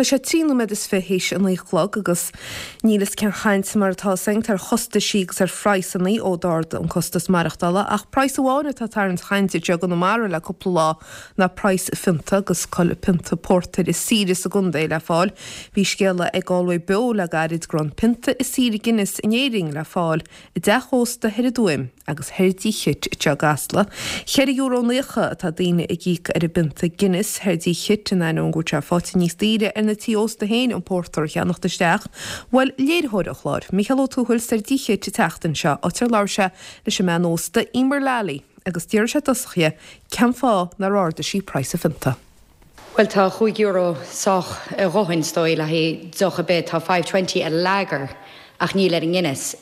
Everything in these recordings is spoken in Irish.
Tá sé 23 nóiméad théis a 9 a chlog agus níl fhios cén chaint mar atá againn ar chostaisí agus ar phraghsannaí ó d'ardaigh an costas maireachtála ach praghas amháin atá ag tarraingt chainte anseo i gConamara le cúpla lá ná praghas phionta agus cá bhfuil pionta pórtair is saoire sa gcontae le fáil. Bhí scéala ag Galway Beo le gairid go raibh an pionta is saoire Guinness in Éirinn le fáil i dteach ósta thoir i dTuaim agus thoir dTigh Chit anseo i gCasla. €4.90 atá daoine ag íoc ar an bpionta Guinness thoir dTigh Chit in ainneoin go bhfuil sé faighte níos daoire ar na tithe ósta féin an pórtar a cheannacht isteach. Bhuail léiritheoir an chláir, Mícheál Ó Tuathail, soir dTigh Chit an tseachtain seo, áit ar labhair sé leis an mbean ósta Emer Lally agus d'fhiafraigh sé i dtosach dhi cén fáth nár ardaigh sí praghas an phionta. Bhuel tá €5 sách a dhóthain is dóigh le haghaidh deoch ar bith. Tá 5.20 ar lager ach níl ar an nGuinness.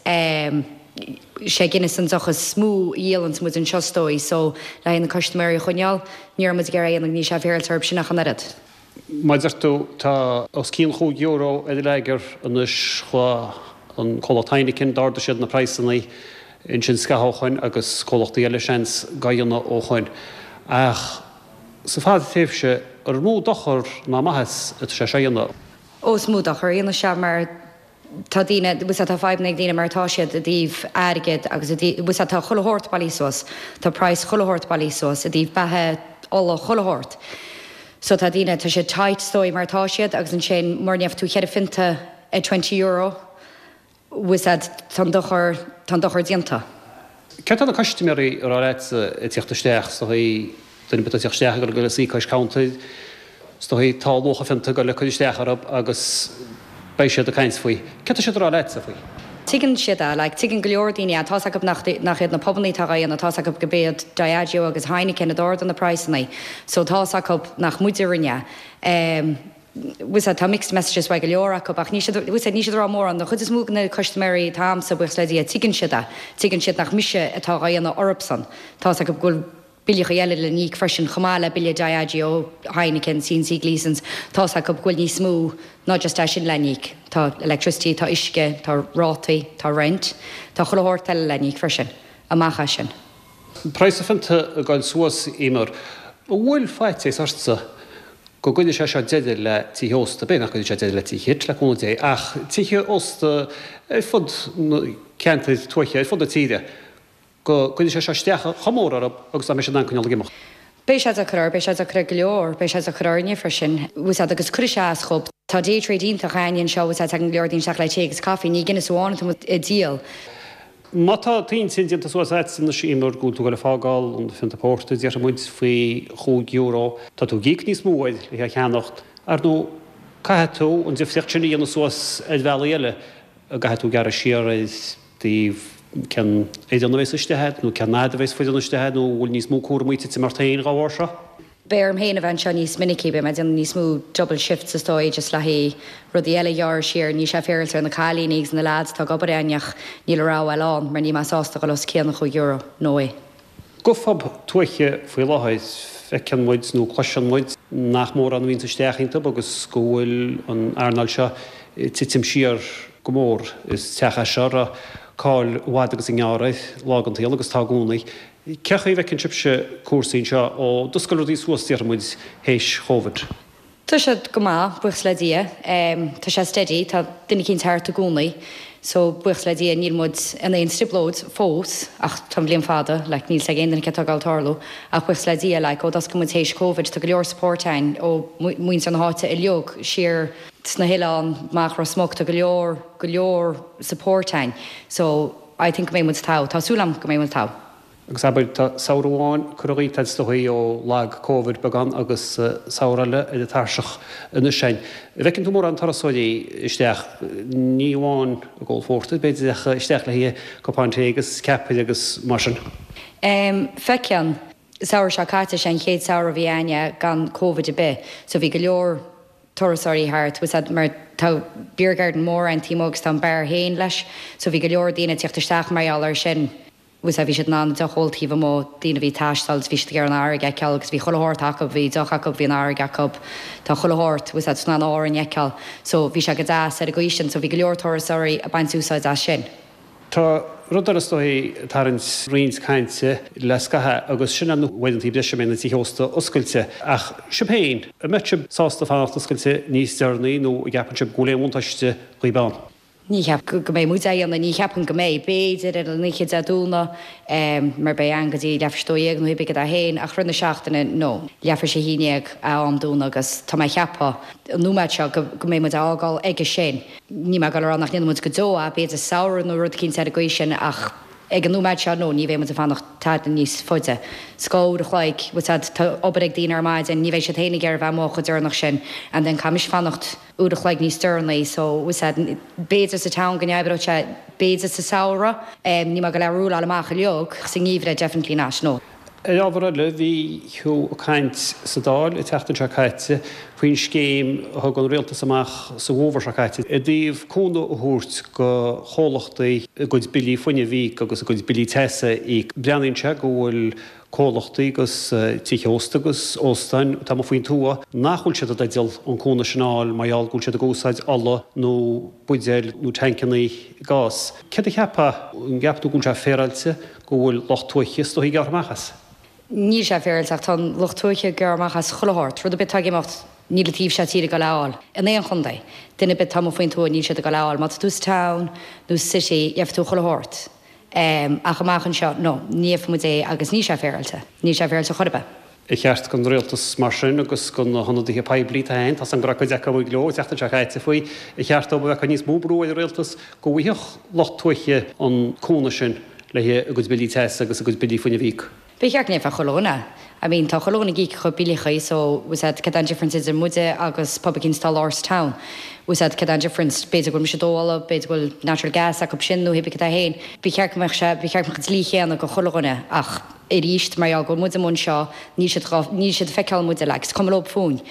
Sé Guinness an deoch is mó a dhíolanns muid anseo is dóigh so le haghaidh na custaiméirí a choinneáil ní raibh muid ag iarraidh a dhéanamh níl sé féaráilte orthu sin ach an oiread. Mar a deir tú, tá os cionn chúig euro ar an lager anois. Chuaigh an comhlacht Heineken, d'ardaigh siad na praghsanna ansin scaitheamh ó shoin agus comhlachtaí eile seans dhá dhéanamh ó shoin. Ach sa fadtréimhse, ar mó dochar ná maitheas atá sé seo a dhéanamh? Ó, is mó dochar a dhéanfaidh sé mar tá daoine, bhfuil 's a'd, tá fadhbanna ag daoine mar atá siad i dtaobh airgid agus i dtaobh, bhfuil 's a'd, tá chuile shórt bailithe suas, tá praghas chuile shórt bailithe suas i dtaobh beatha, ola, chuile shórt. So tá daoine, tá siad tight is dóigh mar atá siad agus ansin mura ndéanfaidh tú cheithre phionta ar €20, bhfuil 's a'd, tá an dochar, tá an dochar déanta. Céard tá na custaiméirí a rá leatsa ag tíocht isteach, is dóigh, duine ar bith atá ag tíocht isteach ag dul a suí cois cuntair, is dóigh, tá luach an phionta ag dul ag cur isteach orthu agus beidh siad ag caint faoi. Céard tá siad a rá leatsa faoi? Tuigeann siad é, like, tuigeann go leor daoine é, tá's acu nach, nach iad na pubannaí atá dhá dhéanamh, tá's acu go b'iad Diageo agus Heineken a d'ardaigh na praghsannaí, so tá's acu nach muide a rinne é. Bhfuil 's a'd, tá mixed messages uaidh go leor acu ach níl siad, bhfuil 's a'd, níl siad ag rá mórán. An chuid is mó de na custaiméirí atá a'msa, buíochas le Dia, tuigeann siad é. Tuigeann siad nach mise atá dhá dhéanamh orthubsan. Tá's acu go bhfuil billeachaí eile le n-íoc freisin chomh maith le bille Diageo, Heineken, C&C Gleesons. Tá's acu go bhfuil níos mó ná just é sin le n-íoc. Tá electricity, tá uisce, tá rátaí, tá rent, tá chuile shórt eile le n-íoc freisin amach as sin. Praghas an phionta ag goil suas, Emer. An bhfuil faitíos ortsa go gcuirfidh sé seo deireadh le tithe ósta, b'fhéidir nach gcuirfidh sé deireadh le Tigh Chit, le cúnamh Dé, ach tithe ósta ar fud na ceantair tuaithe, ar fud na tíre, go gcuirfidh sé seo isteach chomh mór orthu agus nach mbeidh siad in ann coinneáil ag imeacht. Beidh sé deacair orthu, beidh sé deacair ar go leor, beidh sé deacair orainne freisin, bhfuil 's a'd, agus cuirfidh sé as dhób. Tá day trade iontach a'ainne anseo, bhfuil 's a'd, tagann go leor daoine isteach le tae agus caife, ní Guinness amháin atá muid a díol. Má tá t'intinn déanta suas a'd anois Emer go bhfuil tú ag dul ag fágáil an phionta pórtair déarfaidh muid faoi chúig euro, tá tú ag íoc níos mó air le é a cheannacht. Ar ndóigh caithfidh tú an difríocht sin a dhéanamh suas ar bhealaí eile, an gcaithfidh tú gearradh siar ar dtaobh cén fhoireann a bheas istigh a'd nó cén fhad a bheas foireann istigh a'd nó an bhfuil níos mó cúramaí ag titim ort féin dhá bharr seo? Beidh orm féin a bheith anseo níos minicí, beidh mé ag déanamh níos mó double shifts is dóigh, just le haghaidh rudaí eile a ghearradh siar. Níl sé féaráilte ar na cailíní agus na leaids atá ag obair a'ainne ach níl a rogha eile ann mar níl mé sásta dhul os cionn an €5, no way. Go phub tuaithe faoi láthair, feiceann muid nó cloiseann muid nach mórán a bhíonns isteach iontu agus go bhfuil an earnáil seo ag titim siar go mór. Is teach é seo a raibh cáil i bhfad agus i ngearr air lá den tsaol agus tá i gcónaí. Cé chaoi a bhfeiceann sibhse cúrsaí anseo ó d'oscail rudaí suas déarfaidh muid théis Chóvid? Tá siad go maith, buíochas le Dia. Tá sé steady, tá duine eicínt thart i gcónaí. So, buíochas le Dia níl muid in aon trioblóid fós ach tá an bhliain fada, like níl 's ag aon duine céard atá ag gabháil tarlú. Ach buíochas le Dia, like ó d'oscail muid théis Covid tá go leor support a'ainn ó muintir na háite uilig, siar sna hoileáin, amach Ros Muc, tá go leor, go leor support a'ainn. So, I think go mbeidh muid togha. Tá súil agam go mbeidh muid togha. Agus abair, tá samhradh amháin curtha dhíot is dóigh ó lag Covid beagán agus samhradh eile ar an tairseach anois a'inn. An bhfeiceann tú mórán turasóirí isteach, ní amháin ag ól phórtair, b'fhéidir, ach isteach le haghaidh cupán tae agus ceapaire agus mar sin? Em, feiceann. Samhradh seo caite, sé an chéad samhradh a bhí a'inne gan Covid ar bith, so bhí go leor turasóirí thart, bhfuil 's a'd, mar tá beer garden mór a'inn taobh amuigh agus tá an beár féin leis, so bhí go leor daoine ag tíocht isteach mar gheall air sin, bhfuil 's a'd, bhí siad in ann deoch a ól taobh amuigh, daoine a bhí ag taisteal agus bhí siad ag iarraidh an fharraige a fheiceáil agus bhí chuile shórt acu, bhí deoch acu, bhí an fharraige acu, tá chuile shórt, bhfuil 's a'd, in ann Árainn a fheiceáil, so bhí sé go deas ar an gcaoi sin, so bhí go leor turasóirí ag baint úsáid as sin. Tá rud eile is dóigh ag tarraingt roinnt cainte le scaitheamh agus sin na huaireanta breise a mbeidh na tithe ósta oscailte. Ach sibh féin, an mbeadh sibh sásta fanacht oscailte níos deireanaí nó an gceapann sibh go bhfuil aon bhuntáiste dhaoib ann? Ní cheapaim go mbeidh muid á dhéanamh, ní cheapaim go mbeidh. B'fhéidir ar an oíche Dé Domhnaigh mar beidh ann go dtí leathuair tar éis 12 nó hé bith cad é féin ach rith na seachtaine, no. Leathuair tar éis 11 a am dúnadh agus tá mé ag ceapadh an nóiméad seo go mbeidh muid á fhágáil aige sin. Níl mé ag dul a rá nach ndéanfaidh muid go deo é, b'fhéidir samhradh nó rud eicínt ar an gcaoi sin ach ag an nóiméad seo, no, ní bheidh muid ag fanacht tada níos faide. 'S dhá uair a chloig, bhfuil 's a'd, tá obair ag daoine ar maidin, ní bheidh siad féin ag iarraidh bheith amuigh chomh deireanach sin and then caithfimis fanacht. uair a chloig níos deireanaí so bhfuil 's a'd b'fhéidir sa town go n-oibreodh sé b'fhéidir sa samhradh níl mé ag dul a rúláil amach uilig sa ngeimhreadh definitely not no. Ar ábhar eile, bhí tú ag caint sa Dáil an tseachtain seo caite faoin scéim a thug an Rialtas amach sa bhfómhar seo caite i dtaobh cúnamh a thabhairt do chomhlachtaí a gcuid billí fuinnimh a íoc agus a gcuid billí teasa a íoc. Breathnaíonn sé go bhfuil comhlachtaí agus tithe ósta agus óstáin atá amuigh faoin tuath nach bhfuil siad i dteideal an cúnamh sin a fháil mar gheall go bhfuil siad ag úsáid ola nó buidéil nó tancannaí gáis. Céard a cheapfá? An gceapann tú go bhfuil sé féaráilte go bhfuil lucht tuaithe is dóichí ag gearradh amach as? Níl sé féaráilte ach tá an lucht tuaithe ag gearradh amach as chuile shórt. Rud ar bith atá ag imeacht níl an taobh seo tíre ag dul a fháil. In aon chontae. Duine ar bith atá amuigh faoin tuath níl siad ag dul a fháil. Má tá tú sa town nó sa city gheobhaidh tú chuile shórt. Ach amach anseo, no, ní gheobhaidh muid é agus níl sé féaráilte. Níl sé féaráilte chor ar bith. Ar cheart don rialtas mar sin agus do na hionadaithe poiblí atá ann, tá 's agam go raibh cuid acu ag leo an tseachtain seo caite faoi, ar cheart dóibh a bheith ag cur níos mó brú ar an rialtas go bhfaigheadh lucht tuaithe an cúnamh sin le a gcuid billí teasa agus a gcuid billí fuinnimh a íoc? Ba cheart go ndéanfadh chuile dhuine. I mean tá chuile dhuine ag íoc a chuid billeachaí so bhfuil 's a'd cad é an difference idir muide agus pub eicínt atá lár sa town. Bhfuil 's a'd cad é an difference, b'fhéidir go bhfuil mise ag dó ola, b'fhéidir go bhfuil natural gas acu sin nó hé bith cad é féin. Ba cheart go mbeadh sé, ba cheart go mbeadh an dlí chéanna go chuile dhuine ach aríst mar gheall go bhfuil muid amuigh anseo níl siad dhá, níl siad ag feiceáil muide like is cuma leob fúinn.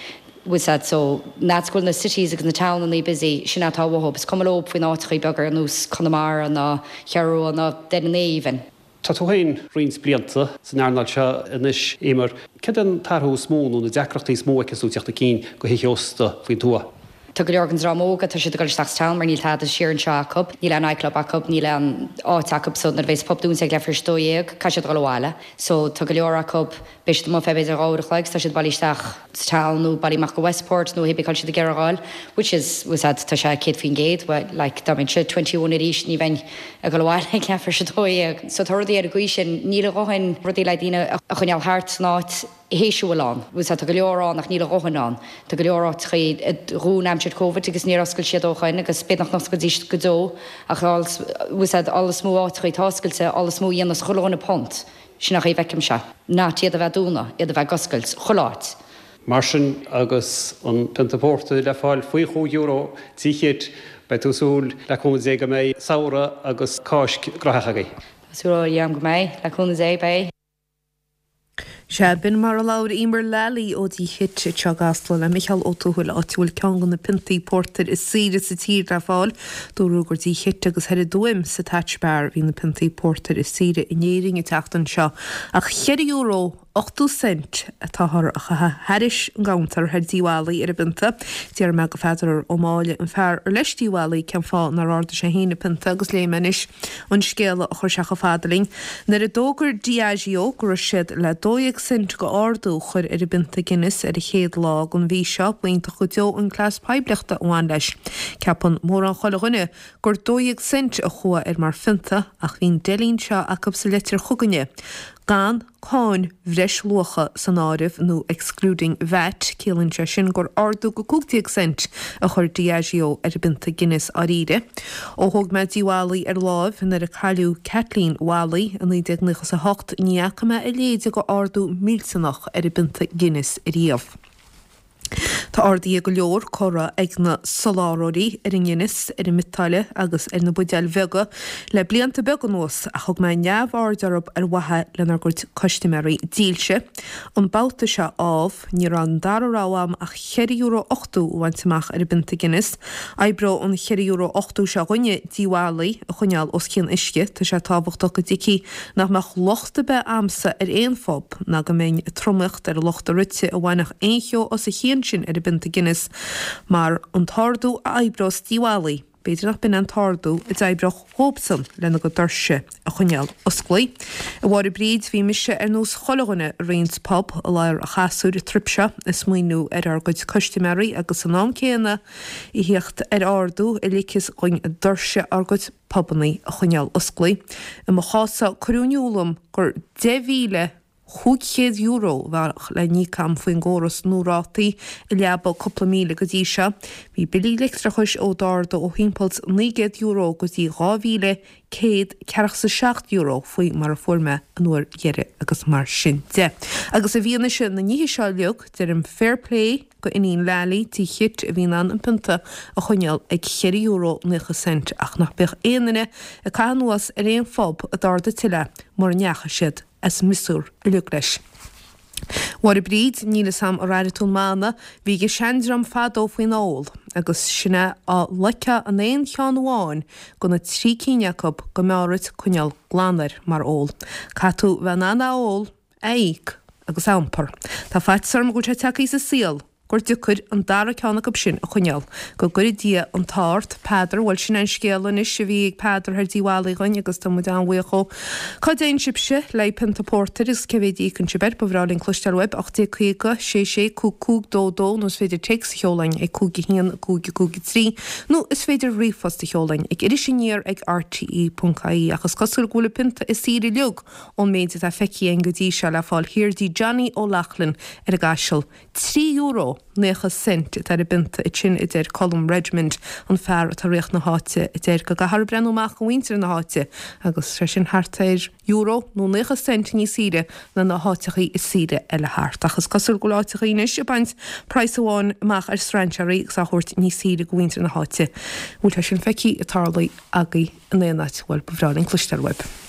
Bhfuil 's a'd so an fhad 's go bhfuil na cities agus na townannaí busy sin atá uathub is cuma leob faoin áiteachaí beaga ar nós Conamara ná Cheathrú Rua ná Doire na even. Tá tú féin roinnt blianta san earnáil seo anois, Eimear. Céard é an t-athrú is mó nó na deacrachtaí is mó a fheiceanns tú ag teacht chun cinn do thithe ósta faoin tuath? Tá go leor den dream óg, tá siad ag dul isteach sa town mar níl tada siar anseo acu. Níl aon nightclub acu, níl aon áit acu so nuair a bhéas pub dúnta ag leathuair tar éis 12, caithfidh siad dul abhaile. So tá go leor acu, Beidh siad amuigh feadh b'fhéidir 2 uair a chloig 's tá siad bailithe isteach sa town nó bailithe amach go Westport nó hé bith cá bhfuil siad ag iarraidh a ghoil which is, bhfuil 's a'd, tá sé 100%, well like dá mbeinnse 21 arís ní bheinn ag dul abhaile ag leathuair tar éis 12. So tá rudaí ar an gcaoi sin, níl a dhóthain rudaí le daoine a choinneáil thart san áit théis a bhfuil ann, bhfuil 's a'd, tá go leor ann ach níl a dhóthain ann. Tá go leor áiteachaí a dhún aimsir Covid agus níor oscail siad ó shoin agus b'fhéidir nach n-osclaídís go deo ach bhfuil 's a'd, all is mó áiteachaí atá oscailte, all is mó a dhéanas chuile dhuine punt. Sin an chaoi a bhfeicimse. Not iad a bheith dúnadh, iad a bheith ag oscailt, chuile áit. Mar sin, agus an pionta pórtair le fáil faoi chúig euro Tigh Chit, beidh tú ag súil, le cúnamh Dé, go mbeidh samhradh agus Cáisc graitheach agaibh. Tá súil agam go mbeidh, le cúnamh Dé, beidh. Sea, b'in mar a labhair Eimear Lally ó Dtigh Chit anseo i gCasla le Micheál Ó Tuathail, áit a bhfuil ceann de na piontaí pórtair is saoire sa tír le fáil. Dúradh gur Dtigh Chit agus thoir i dTuaim sa Thatch Bar a bhí na piontaí pórtair is saoire in Éirinn an tseachtain seo, ach €4 80 cent atáthar a chaitheamh thairis an gcuntar thoir Dtigh Mholly ar an bpionta. D'iarr mé go Pheadar Ó Máille, an fear ar leis Tigh Mholly, cén fáth nár ardaigh sé féin an pionta agus léifidh mé anois an scéala a chuir sé chomh fada linn. Nuair a d'fhógair Diageo go raibh siad le 12 cent go ardú a chur ar an bpionta Guinness ar an chéad lá den mhí seo, b'iontach go deo an cleas poiblíochta a bhain leis. Ceapann mórán chuile dhuine gur 12 cent a chuaigh air mar phionta ach bhí an deilín seo acu sa leitir chugainne, gan cáin bhreisluacha san áireamh nó excluding VAT, ciallaíonn sé sin gur ardú go 15 cent a chuir Diageo ar an bpionta Guinness dháiríre. Ó thóg mé Tigh Mholly ar láimh nuair a cailleadh Kathleen Mholly i 1998 ní fhaca mé a leithéid de ardú millteanach ar an bpionta Guinness ariamh. Tá arduithe go leor curtha ag na soláthróirí ar an nGuinness, ar an mbiotáille agus ar na buidéil bheaga le blianta beaga anuas ach thug mé neamhaird orthu ar mhaithe lenár gcuid custaiméirí dílse. An babhta seo, ámh, ní raibh an dara rogha agam ach €4.80 a bhaint amach ar an bpionta Guinness. Oibreoidh an €4.80 seo dhúinne Tigh Mholly a choinneáil os cionn uisce. Tá sé tábhachtach go dtuigfí nach mbeadh locht ar bith a'msa ar aon phub ná go mbeinn ag tromaíocht ar lucht a rite a bhainfeadh aon cheo as a chionn sin ar an bpionta Guinness mar an t-ardú a oibreos Tigh Mholly. B'fhéidir nach b'in an t-ardú a d'oibreodh dhóibhsan lena gcuid doirse a choinneáil osclaí. A Mháire Bríd, bhí mise ar nós chuile dhuine i roinnt pub i lár an chasúir an trip seo ag smaoineamh ar ár gcuid custaiméirí agus san am céanna a thíocht ar ardú a ligfeas dhuinn doirse ár gcuid pubannaí a choinneáil osclaí. I mo chás-sa cuireadh in iúl dom gur €10,500 a bheadh le n-íoc agam faoin gcóras nua rátaí a leabaidh cúpla míle go dtí seo. Bhí billí leictreachais ó d'ardaigh ó thimpeall €900 go dtí €2,147 faoi mar a fuair mé an uair dheiridh agus mar sin de. Agus i bhfianaise na nithe seo uilig, deirim fair play go Iníon Lally, Tigh Chit, a bhí in ann an pionta a choinneáil ag €4.90 ach nach mbeadh aon duine ag caitheamh anuas ar aon phub a d'ardaigh tuilleadh mura ndeachaigh siad as miosúr uilig leis. Mháire Bríd, níl fhios a'm ar airigh tú an mana bhí ag an seandream fadó faoin ól agus sin é á loicfeá an aon cheann amháin go na trí cinn acu go mb'fhearr dhuit coinneáil glan air mar ól. Caithfidh tú bheith in ann a ól, a íoc agus a iompar. Tá faitíos orm go bhfuil sé tagtha sa saol gur deacair an dara ceann acu sin a choinneáil. Go gcuire Dia an t-ádh ort, Peadar. Bhuel, sin é an scéal anois a bhí ag Peadar thoir Dí Mhallaí dhuinn agus tá muid an-bhuíoch dhó. Cá dtéann sibhse le haghaidh pionta pórtair agus cé mhéad a íocann sibh air? Ba bhreá linn cloisteáil uaibh. 1850 66 55 22 nó is féidir téacs a sheoladh ag 5 1 5 5 3 nó is féidir ríomhphost a sheoladh ag irisaniar ag rte.ie ach is cosúil go bhfuil an pionta is saoire uilig Ón méid atá feicthe againn go dtí seo le fáil thiar dtí Johnny O'Loughlin ar an gCaiseal, €3 naocha cent atá ar an bpionta ansin, a deir Colm Redmond, an fear atá ag ritheacht na háite, a deir go gcaithfear breathnú amach do mhuintir na háite agus sé sin thart ar euro nó naocha cent níos saoire ná na háiteachaí is saoire eile thart. Ach is cosúil go bhfuil áiteachaí anois ag baint praghas amháin amach ar strainséaraí agus á thabhairt níos saoire do mhuintir na háite. Bhfuil sé sin feicthe ag tarlú agaibh in aon áit? Bhuel, ba bhreá linn cloisteáil uaibh.